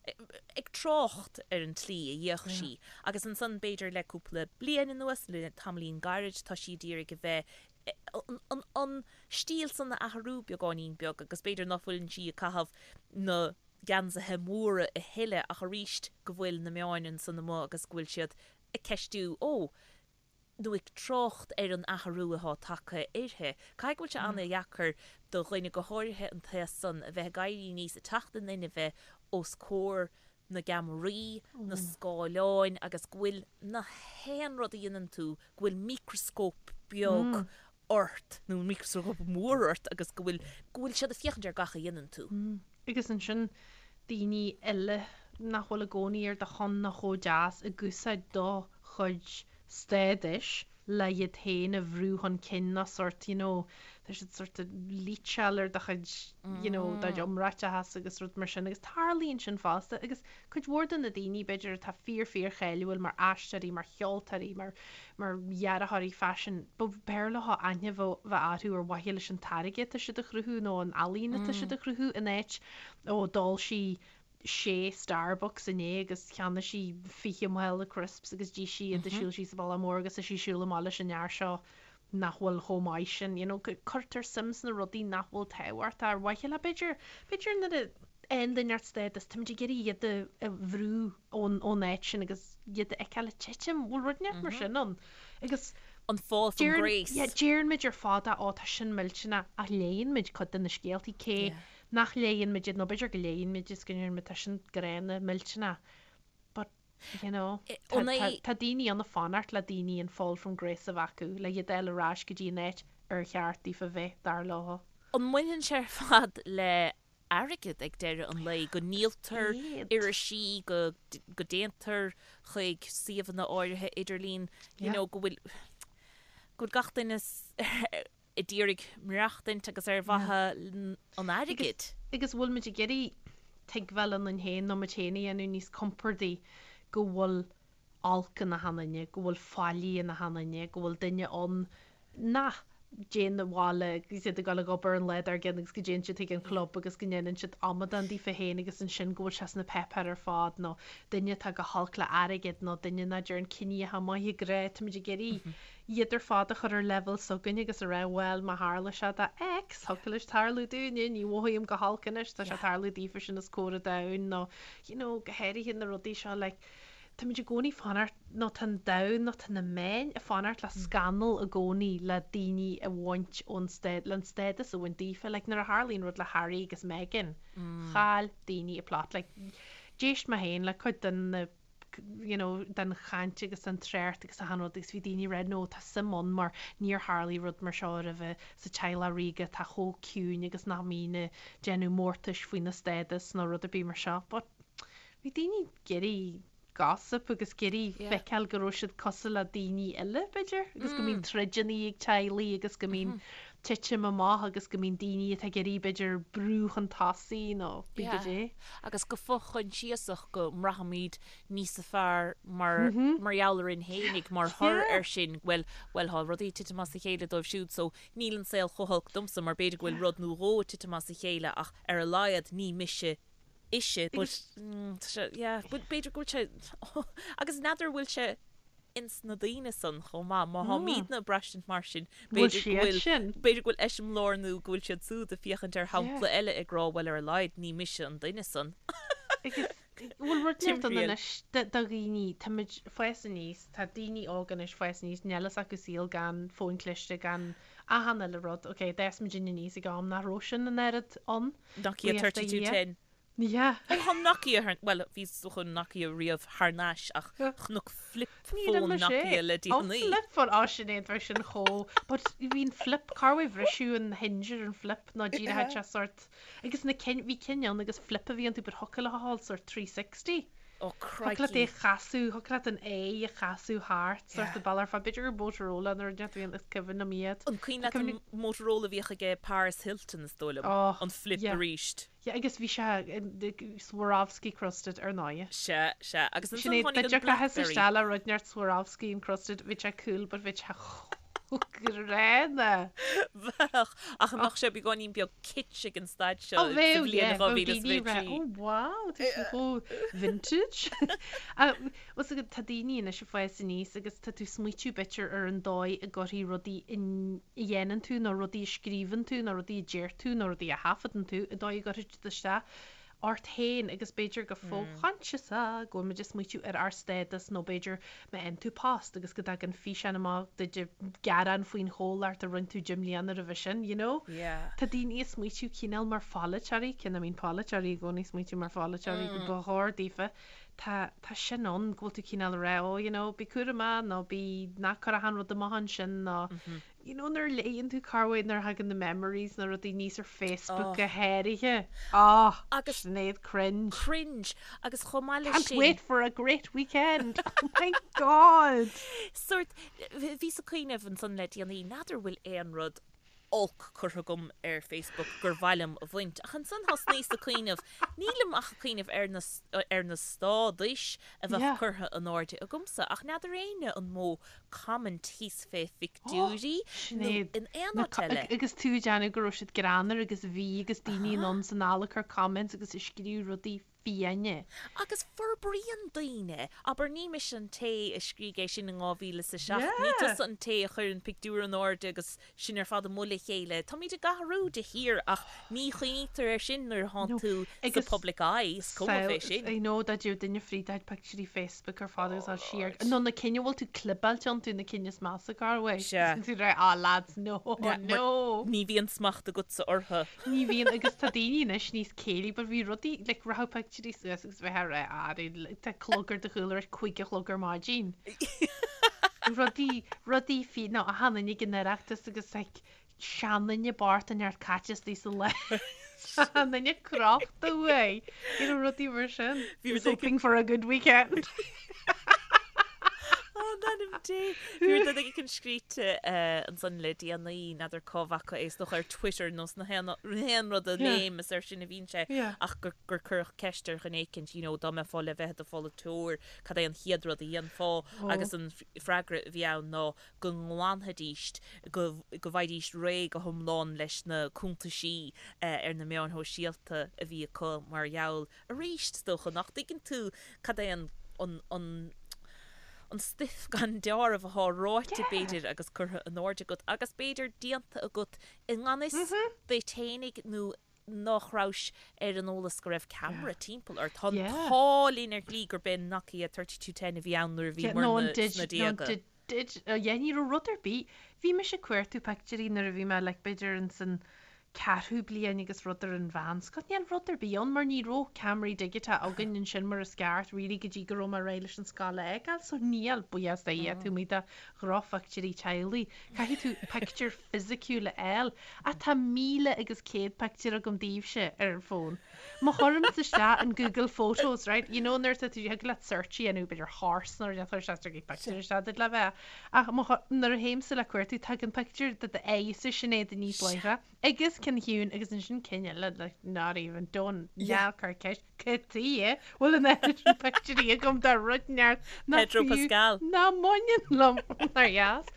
ag trácht ar an tslí a bhíodh sí. Agus ansan b'fhéidir le cúpla bliain anuas, le tamaillín gairid, tá sí d'iarraidh a bheith, an, an stíl san a athrú beagáinín beag agus b'fhéidir ná fuileann sí ag caitheamh na geansaithe móra a thuilleadh ach arís go bhfuil na meáin ansan amuigh agus go bhfuil siad ag ceistiú, ó, nó ag trácht ar an athrú atá tagtha uirthi. Caithfidh go bhfuil sé an-dheacair do dhuine, go háirithe an t-aos san, a bheith ag éirí aníos, ag teacht in inmhe os comhair na gceamaraí, na scáileáin agus go bhfuil na haon rud a dhéanann tú, go bhfuil micreascóp beag ort, nó micreascóp mór ort agus go bhfuil, go bhfuil siad ag féachaint ar gach a dhéanann tú. Agus ansin daoine eile nach bhfuil i gcónaí ar do shon ná chomh deas ag úsáid do chuid stádais le iad féin a bhrú chun cinn nó sórt you know tá siad sórt ag leecháil ar do chuid you know do chuid iomráiteachas agus rud mar sin agus tarlaíonn sin fosta agus cuid mhór de na daoine b'fhéidir atá fíor fíor cháiliúil mar aisteoirí mar cheoltóirí mar mar dhearthóirí faisin b'fhearr leo aithne a bheith orthu ar mhaithe leis an táirge atá siad a chruthú nó an ealaín atá siad a chruthú in áit ó d'ól sí sé Starbucks inné agus cheannaigh sí 20 mála crisps agus d'ith sí iad ag siúl síos an bealach mór agus tá sí ag siúl amach leis an fhear seo nach bhfuil chomh maith sin. You know, cuirtear suim sna rudaí nach bhfuil tábhachtach ar mhaithe le b'fhéidir, b'fhéidir nuair a fhaigheann duine inteacht stádas, táimid ag iarraidh iad a bhrú ón, ón áit sin agus iad a fheiceáil ag titim, bhfuil rud inteacht mar sin ann? Agus An fall from grace. Yeah, deireann muid ar fad á, tá sin millteanach ach léann muid cuid de na scéaltaí cé nach léann muid iad, nó b'fhéidir go léann muid is go ndeireann muid tá sin gránna, millteanach but, you know, tá, tá, tá daoine ann ag fanacht le daoine an fall from grace a bheith acu, le iad a fháil ar ais go dtí an áit ar cheart daofa bheith, dar leo. An mbaineann sé ar fad le. airgead ag deireadh an lae, go ndíoltar irisí, go go dtéantar chuig suíomhanna áirithe idirlín, you know, go bhfuil go bhfuil gach duine ag iarraidh maireachtaint agus ar mhaithe an airgid. Agus bhfuil muid ag iarraidh tuigbheáil ionainn féin nó muid féin a dhéanamh níos compordaí go bhfuil olc in achan duine, go bhfuil faillí in achan duine, go bhfuil duine ann nach dtéann abhaile agus iad ag dul ag obair an lá dár gcionn agus go dtéann siad chuig an chlub agus go ndéanann siad amadán daofa féin agus ansin go bhfuil sé sna páipéir ar fad nó duine atá go holc le airgead nó duine nach dtéarn cinní atá maith i grá, táimid ag iarraidh iad ar fad a chur ar leibhéal s'againn agus a rá bhuel má tharla sé do X, thiocfadh leis tarlú dúinne, ní mhothaím go holc anois, tá sé ag tarlú daofa sin os comhair an domhain nó you know go háirithe na rudaí seo like Táimid i gcónaí ag fanacht, nó tá an domhan, nó tá na meáin ag fanacht le scannal i gcónaí le daoine a bhaint ón stád, le an stádas a bhaint daofa. Like nuair a tharlaíonn rud le Harry agus Meghan, chaill daoine a plot. Like d'éist mé féin le cuid den na you know den chaint agus den trácht agus achan rud agus bhí daoine ag rá no tá suim ann mar níor tharlaigh rud mar seo roimhe sa teaghlach ríoga atá chomh ciúin agus nach mbíonn ag déanamh mórtais faoina stádas nó rud ar bith mar seo. But Bhí daoine ag iarraidh gossip agus ag iarraidh feiceáil go raibh siad cosúil le daoine eile, b'fhéidir, agus go mbíonn troideanna ag teaghlaigh agus go mbíonn titim amach agus go mbíonn daoine atá ag iarraidh, b'fhéidir, brú chun tosaigh nó pé cad é. Agus go fo-choinsiasach go mbraithimid níosa fearr mar mar gheall orainn fhéinig mar thoradh air sin, bhuel, bhuel, thá rudaí ag titim as a chéile dóibh siúd so níl an saol chomh holc domsa mar b'fhéidir go bhfuil rud nó dhó ag titim as a chéile ach ar a laghad ní mise ise but tá sé yeah but b'fhéidir go bhfuil sé agus n'fheadar bhfuil sé ins na daoine san chomh maith má tháimídne ag braistint mar sin b'fhéidir go bhfuil b'fhéidir go bhfuil eiseamláir nó go bhfuil siad súd ag féachaint ar shampla eile ag rá bhuel ar a laghad ní mise an duine san. Agus bhfuil rud inteacht ann anois do dhaoine táimid ag fás aníos tá daoine óga anois ag fás aníos níl fhios acu saol gan fóin cliste gan achan uile rud ok d'fhás muidinne aníos ag am nach raibh sin an oiread ann. Nokia Buíochas do Dhia. 3210. Yeah. Ó thá Nokia thar, bhuel bhí is dócha Nokia riamh thar n-ais ach chonac flip Ní raibh phone mise. Nokia le Ó déanaí. flip phone, ó Sinéad bheadh sin chomh, but bhí an flip, cá bhfuil bhriseadh an hinge ar an flip nó díreach sé sort, agus na cinn, bhí cinn ann agus flip a bhí iontu but thiocfadh leat a ghabháil sort 360. Ó Thiocfadh leat é crikey. a chasadh, thiocfadh leat an aghaidh a chasadh thart sort Yeah. of bealach ar fad, b'fhéidir gur Motorola nó rud inteacht a bhí ann, is cuimhin liom iad. An cuimhin Tá leat an cuimhne. Motorola a bhíodh aige Paris Hilton is dóigh liom, Oh, an flip yeah. aríst. Yeah, agus bhí sé Swarovski crusted ar ndóigh. Sea, sea. Agus ansan Sinéad, tháinig an dá dtiocfadh Blackberry. isteach le rud inteacht Swarovski encrusted, bhí sé cool but bhí sé chomh gránna. Bheadh, ach an mbeadh sé beagáinín beag kitsch ag an staid seo Ó sa bheadh, bhliain yeah, bheadh daoine ag rá, 2023? oh wow, tá sé chomh vintage. Bhfuil fhios agat, tá daoine anois ag fás aníos agus tá tú ag smaoitiú b'fhéidir ar an dóigh a gcuirfidh rudaí a dhéanann tú nó rudaí a scríobhann tú nó rudaí a deir tú nó rudaí a thaifeadann tú, an dóigh a gcuirfidh siad isteach ort féin agus b'fhéidir go fo-choinsiasach go bhfuil muid ag smaoitiú ar ár stádas nó b'fhéidir má fhaigheann tú post agus go dtagann físeán amach duit ag gearán faoin chomhlacht a rinne tú 10 mbliana roimhe sin, you know? Yeah. Tá daoine ag smaoitiú cineál mar pholaiteoirí, cé nach mbíonn polaiteoirí i gcónaí ag smaoitiú mar pholaiteoirí go ba chóir daofa, tá, tá sin ann go bhfuil tú cineál ag rá oh you know bí cúramach nó bí, ná cuir achan rud amach ansin nó you know nuair a léann tú corruair nuair a thagann na memories nó rudaí aníos ar Facebook go háirithe. Oh, Agus- Sinéad cringe. Cringe. Agus chomh maith leis Can't sin. wait for a great weekend. Oh my God. Sort, bhíos ag cuimhneamh ansan le déanaí, n'fheadar bhfuil aon rud olc curtha agam ar Facebook gur mhaith liom a bhaint. Ach ansan thosnaíos ag cuimhneamh, nílim ach ag cuimhneamh ar na, ar na stádais a bheadh Yeah. curtha in airde agamsa, ach n'fheadar éinne an mó comment thíos fé phictiúirí nó Sinéad, in aon na áit co- eile. agus tú ag déanamh go raibh siad greannmhar agus bhí agus daoine anonn is anall ag cur comments agus ag scríobh rudaí fiáine. Agus forbraíonn daoine, abair, ní mise an té a scrígh é sin in 2007, ní tusa an té a chuir an pictiúr in airde agus sinn ar fad amuigh le chéile. Táimid ag athrú de shíor ach ní chuimhnítear air sin nuair atánn tú sa public eye, is cuma fé sin. I know, dá dtéadh duine fríd do phictiúirí Facebook ar fad agus dul siar, nó na cinn a bhfuil tú clibeáilte iontu, na cinn is measa corruair. Sea. Tú ag rá, ah lads, no, no. Ní bhíonn smacht agatsa orthu. Ní bhíonn agus tá daoine anois níos céillí but bhí rudaí like rachadh pictiúirí suas agus bheith ag rá ah tá clog ar do chúl ar 5 a chlog ar maidin. Rudaí rudaí fi nó achan duine ag an Oireachtas agus like seanduine bocht inteacht caite istigh sa lá. An duine crochta uaidh, you know, rudaí mar sin. Bhí rud hoping for a good weekend. Ó, in ainm Dé. Bhí rud éigin scríte ansan le déanaí, n'fheadar cá bhfaca é, is dócha ar Twitter nó sna haon rud a léim, is air sin a bhíonn sé, ach gur cuireadh ceist ar dhuine éicint, you know, dá mbeifeá le bheith i do pholaiteoir, cad é an chéad rud a dhéanfá? Agus an freagra a bhí ann ná go nglanfaidís, go bhfaighidís réidh go hiomlán leis na cuntaisí ar na meáin shóisialta a bhí acu mar gheall, arís, is dócha, nach dtuigeann tú cad é an, an, an, an stuif gan deáramh athá ráite, b'fhéidir, agus curtha in airde agat agus b'fhéidir déanta agat i ngan fhios duit fhéinig nó nach rabhais ar an eolas go raibh ceamara timpeall ort. Tá an t-ádh linn ar shlí gurb é Nokia 3210 a bhí ann nuair a bhí muidne sna déaga. Yeah, ní raibh rud ar bith. Bhí mise ag cuartú pictiúirí nuair a bhí mé like b'fhéidir ins an ceathrú bliain agus rud ar an mheánscoil. Níl rud ar bith ann mar ní raibh ceamaraí digiteacha againn ansin mar is ceart really go dtí go raibh mé réidh leis an scoil a fhágáil. So níl, buíochas do Dhia, taobh amuigh de dhrochphictiúirí teaghlaigh. Caithfidh tú pictiúr fisiciúil a fháil. Ach tá 1,100 pictiúr agam daoibhse ar an bhfón. Má chuirimse isteach in Google Photos, right, you know nuair atá tú, thig leat search a dhéanamh, b'fhéidir horse nó rud éigin, chuir sé pictiúr isteach duit le bheith. Ach má chu, nuair a théimse le cuartú, tagann pictiúr de d'aghaidhse Sinéad aníos láithreach, agus cinn Shiún agus ansin cinn eile, like, not even, don't, ná cuir ceist. Cad chuige a bhfuil an oiread sin pictiúirí agam de rud inteacht nach Pedro fiú Pascal. ná mbaineann liom nár dheas.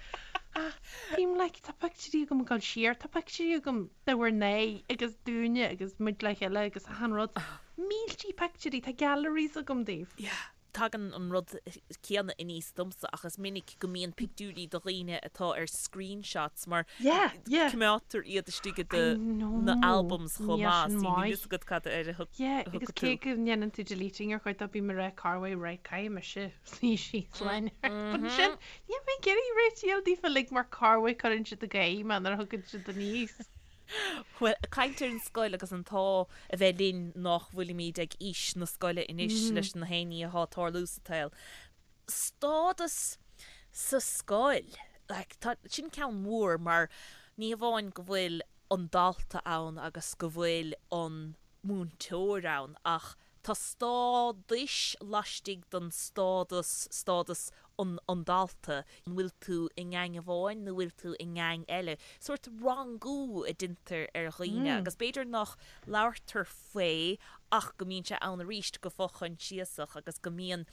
Ach bím like tá pictiúirí agam ag dul siar, tá pictiúirí agam de bhur n-aghaidh agus dúinne agus muid le chéile agus achan rud. Míltí pictiúirí, tá galleries agam daoibh. Yeah. Tagann an rud céanna aníos domsa ach is minic go mbíonn pictiúirí de dhaoine atá ar screenshots mar coimeádtar iad istigh i do na albums chomh maith so níl fhios agat cad air a thug Yeah, agus cé go ndéanann tú deleting ar chuid dó bím ag rá corruair right caithfidh mise suí síos lena But ansin níl mé ag iarraidh réitigh daofa uilig mar corruair cuireann siad ag gáire mé nuair a thugann siad aníos. Bhuel, ag caint ar an scoil agus an t-ádh a bheith linn nách bhfuilimid ag aois na scoile anois leis na haon ní athá ag tarlú sa tsaol. Stádas sa scoil, like, tá, sin ceann mór mar ní hamháin go bhfuil an dalta ann agus go bhfuil an múinteoir ann ach Tá stádais laistigh den stádas, stádas an an dalta, an bhfuil tú i ngeaing amháin nó bhfuil tú i ngeaing eile? Sórt rangú a deintear ar dhaoine agus b'fhéidir nach labhartar faoi ach go mbíonn sé ann arís go fo-choinsiasach agus go mbíonn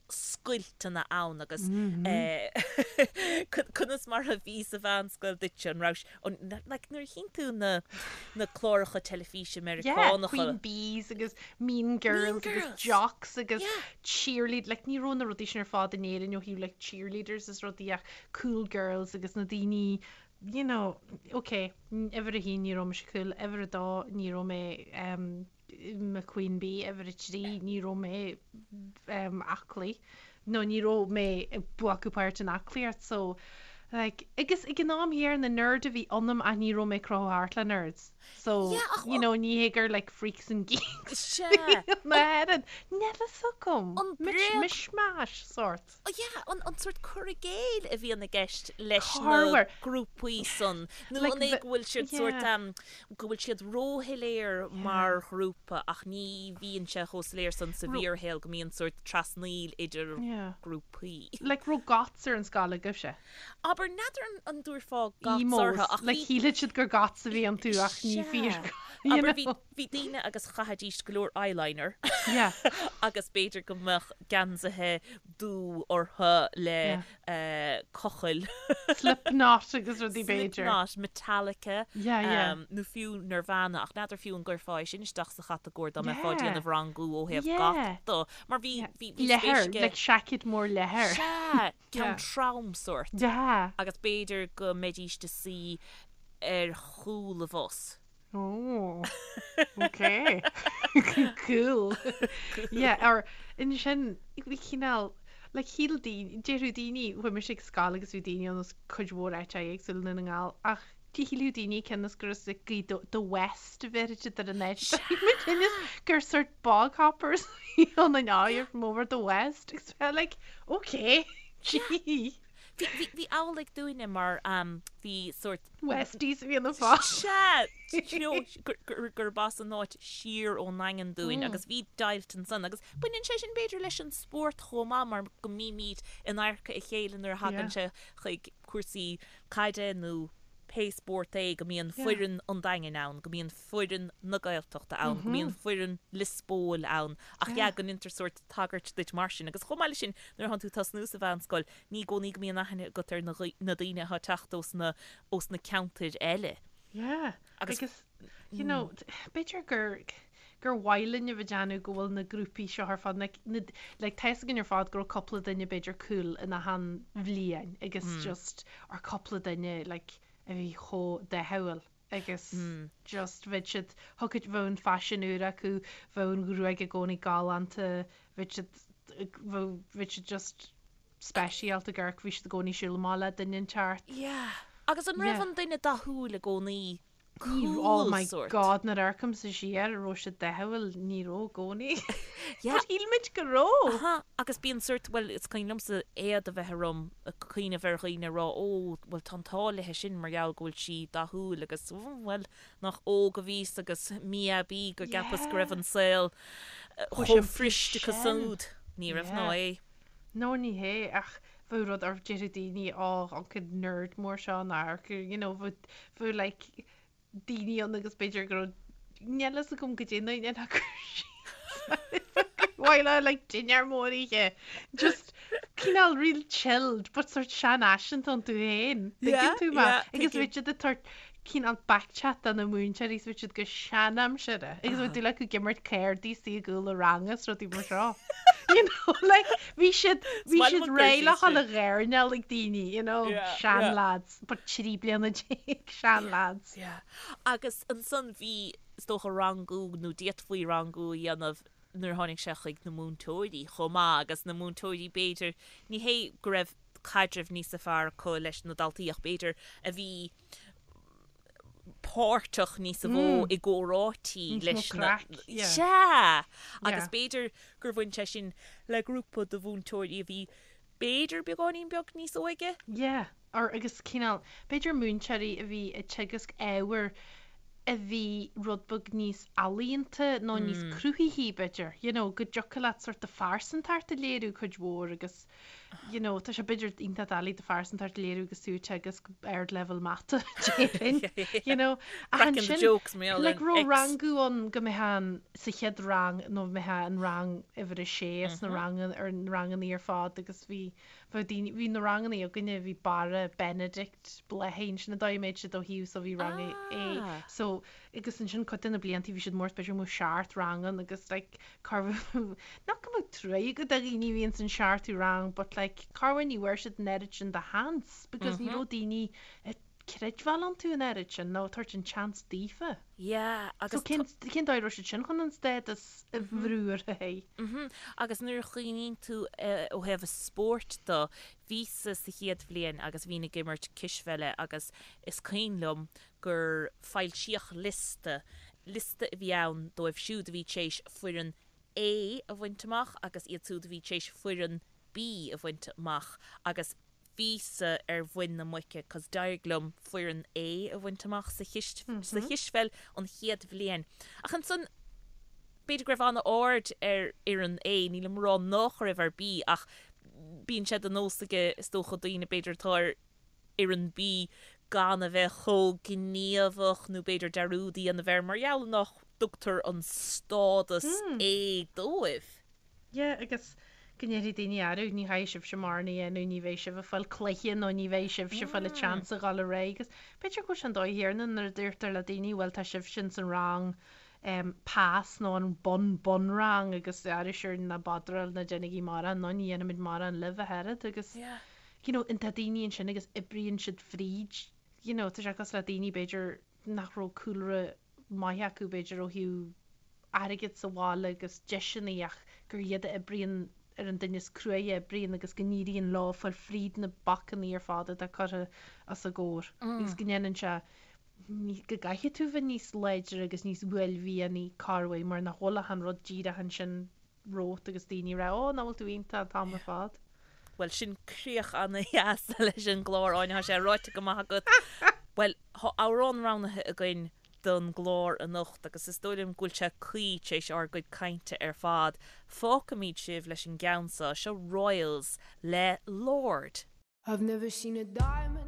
scoilteanna ann agus conas mar a bhí sa mheánscoil duitse, an raibh, like nuair a chíonn tú na na cláracha teilifíse Meiriceánacha. Yeah, Queen Bees agus Mean Girls agus Jocks agus Cheerlead, like ní raibh na rudaí sin ar fad in Éirinn ó thaobh like cheerleaders is rudaí ach cool girls agus na daoine you know, ok, uimhir a haon ní raibh mise cool, uimhir a dó ní raibh mé um, i mo Queen Bee, uimhir a 3, ní raibh mé aclaí nó ní raibh mé ag glacadh páirt in aclaíocht so like agus ag an am chéanna nerd a bhí ionam ach ní raibh mé ag crochadh thart le nerds so you know ní hé gur like freaks and geeks na hÉireann níl a fhios agam mishmash sort. Yeah, an an sórt cur i gcéill a bhíonn i gceist leis na grúpaí san, nó an é go bhfuil siad sórt, go bhfuil siad róshoiléir mar ghrúpa ach ní bhíonn sé chomh soiléir san sa bhfíorshaol go mbíonn sórt trasnaíl idir grúpaí. Like raibh goths ar an scoil agaibhse? Abair, n'fheadar an dtabharfá goths orthu ach bhí. Like shílfeadh siad gur goths a bhí iontu ach ní fíor. Abair, bhí Bhí daoine agus chaithidís go leor eyeliner agus b'fhéidir go mbeadh geansaithe dubh orthu le cochaill. Slipknot agus rudaí b'fhéidir. Slipknot, Metallica nó fiú Nirvana ach n'fheadar fiú an gcuirfeá é sin isteach sa chatagóir dá mbeifeá ag déanamh rangú ó thaobh goth de mar bhí bhí spéis aige. Like seaicéad mór leathair. Sea, ceann trom sórt. Agus b'fhéidir go mbeidís ag suí ar chúl an bhus. Oh, ok. Cool. Yeah, or ansin, bhí cineál, like shíl daoine, déarfadh daoine, chuaigh mise ag scoil agus bhí daoine ann as cuid mhór áiteacha éagsúla i nDún na nGall, ach shílfeadh daoine cionn is gur as like Gaoth Dobhair, the West a bheir siad ar an áit. Muid cionn is gur sort bog hoppers a bhí ann in you're from over the West. Agus bheith like, ok, gee. Bhí, bhí amhlaidh dúinne mar bhí sórt. Westies a bhí ina fáth. Sea! You know, gurb as an áit siar ón nDaingean dúinn agus bhí deighilt ansan agus baineann sé sin b'fhéidir leis an spórt chomh maith mar go mbímid in adharca a chéile nuair a thagann sé chuig cúrsaí caide nó pé spórt é, go mbíonn foireann an Daingin ann, go mbíonn foireann na Gaeltachta ann, go mbíonn foireann Lios Póil ann ach yeah go ndéantar sórt tagairt duit mar sin agus chomh maith leis sin nuair atánn tú ag tosnú sa mheánscoil ní i gcónaí go mbíonn aithne agat ar na na daoine atá ag teacht ós na ós na ceantair eile. Yeah, agus you know, b'fhéidir gur gur mhaith linn a bheith ag déanamh go bhfuil na grúpaí seo ar fad, like, na, like, tá fhios againn ar fad go raibh cúpla duine b'fhéidir cool in achan bhliain agus just ar cúpla duine like, a bhí chomh dathúil agus just bheadh siad, thiocfadh, bheadh an faisean úr acu, bheadh an ghruaig i gcónaí galánta, bheadh siad, bheadh, bheadh siad just speisialta ag amharc, bhí siad i gcónaí ag siúl amach le duine inteacht. Yeah. Agus an raibh an duine dathúil i gcónaí cool Oh my sórt? God, nuair a amharcaimse siar, an raibh siad dathúil, ní raibh i gcónaí. Yeah. But shíl muid go raibh. Aha, agus bíonn sórt, bhuel, is cuimhin liomsa éad a bheith orm ag cuimhneamh ar dhaoine ag rá, ó, bhuel, tá an t-ádh léithe sin mar gheall go bhfuil sí dathúil agus, bhuel, nach óg a bhíos agus mí-aibí go gceapas go raibh an saol Chomh chomh simplí fuirist sin. siúd. Ní raibh ná Yeah. é. No ní hé, ach bheadh rud or déarfadh daoine ó an cuid nerd mór seo an amharc, you know, bheadh, bheadh like daoine ann agus b'fhéidir go raibh, níl fhios agam goidé na na cur síos mhaith le like dinnéar mór oíche, just cineál real chilled but sort seanfhaiseanta iontu féin, Yeah, tuigeann tú mé? yeah, Agus tuigim. bheadh siad ag tabhairt cineál backchat do na múinteoirí is bheadh siad go seanaimseartha agus bheadh dúil acu ag imirt cárdaí istigh i gcúl an ranga is rudaí mar seo. You know, like, bhí siad, bhí Smile siad amach réidh le síos dhul sin. a ghairneáil ag daoine, you know, Yeah, yeah. seanlads, but 13 bliana seanlads. Yeah. Agus ansan bhí, is dócha, rangú nó d'fhéadfaí rangú a dhéanamh nuair a tháinig sé chuig na múinteoirí chomh maith agus na múinteoirí b'fhéidir, ní hé go raibh caidreamh níosa fearr acu leis na daltaí ach b'fhéidir a bhí páirteach níosa mhó i gcomhráití Níos mó leis na craic, yeah. Sea! Agus Yeah. b'fhéidir gur bhain sé sin le grúpa de mhúinteoirí a bhí b'fhéidir beagáinín beag níos óige. Yeah, or agus cineál, b'fhéidir múinteoirí a bhí ag teagasc ábhair a bhí rud beag níos ealaíonta nó níos cruthaithí b'fhéidir, you know, go dtiocfadh leat sort do phearsantacht a léiriú cuid mhór agus you know, tá sé b'fhéidir iontach doiligh do phearsantacht a léiriú agus tú ag teagasc ardleibhéal mata, déarfainn, you know. Ach Cracking the ansin, jokes mar gheall ar like, an raibh X. rangú ann go mbeifeá an, sa chéad rang nó mbeifeá an rang uimhir a sé sna ranganna, ar na ranganna ar fad agus bhí, bheadh daoine, bhí na ranganna againne, bhí Barra, Benedict, Bláithín, sin an dóigh a mbeadh siad ó thaobh so bhí rang A, Ah. so agus ansin cuid de na blianta bhí siad mór b'fhéidir go mbeadh seacht rang ann agus like corruair not go mbeadh trua agat do dhaoine a bhíonn san seachtú rang but like corruair ní bhfuair siad an oiread sin de sheans because ní raibh daoine ag creidbheáil iontu an oiread sin nó ag tabhairt an tseans daofa. Yeah So agus cén cén dóigh a raibh siad sin chun an stádas a bhrú orthu féin? Mhm. Agus nuair a chuimhníonn tú ó thaobh an spóirt de, bhíos-sa sa chéad bhliain agus bhínn ag imirt cispheile agus is cuimhin liom gur foilsíodh liosta, liosta a bhí ann dóibh siúd a bhí tar éis foireann A a bhaint amach agus iad siúd a bhí tar éis foireann B a bhaint amach agus bhíos-sa ar mhuin na muice cos d'éirigh liom foireann A a bhaint amach sa sa chispheil an chéad bhliain. Ach ansan b'fhéidir go raibh an-aird ar fhoireann A, nílim ag rá nach raibh ar B ach bíonn sé de nós aige is dócha daoine b'fhéidir atá ar fhoireann B gan a bheith chomh gníomhach nó b'fhéidir dearúd a dhéanamh air mar gheall nach dtugtar an stádas A dóibh. Yeah, agus go ndéarfaidh daoine arú, ní chaithfidh sibhse mórán a dhéanamh, ní bheidh sibh ag fáil cluiche nó ní bheidh sibhse ag fáil an chance a dhul ar aghaidh agus b'fhéidir go bhfuil sé an dóigh chéanna nuair a deirtear le daoine bhuel tá sibhse ins an rang em pass nó an bun bunrang agus arú sure ná bodráil ná déanaigí mórán nó ní dhéanfaimid mórán libh ach oiread agus Yeah. you know, tá daoine ansin agus oibríonn siad fríd, you know, tá sé cosúil le daoine b'fhéidir nach raibh cúlra maith acu b'fhéidir ó thaobh airgid sa bhaile agus deiseanna ach gur iad a oibríonn ar an duine is cruaidhe a oibríonn agus go n-éiríonn leo fáil fríd na bacanna ar fad atá curtha os a gcomhair agus go ndéanann sé go gcaithfidh tú bheith níos láidre agus níos uaillmhianaí corruair mar nach bhfuil ach an rud díreach ansin romhat agus daoine ag rá, Ó, nach bhfuil tú iontach an t-am ar fad. Bhuel, sin críoch ana-dheas leis an gclár, Áine, tá sé ráite go maith agat. Bhuel, tá amhrán roghnaithe againn don gclár anocht agus is dóigh liom go bhfuil sé cuí tar éis ár gcuid cainte ar fad. Fágfaimid sibh leis an gceann seo, seo Royals le Lorde. I've never seen a diamond.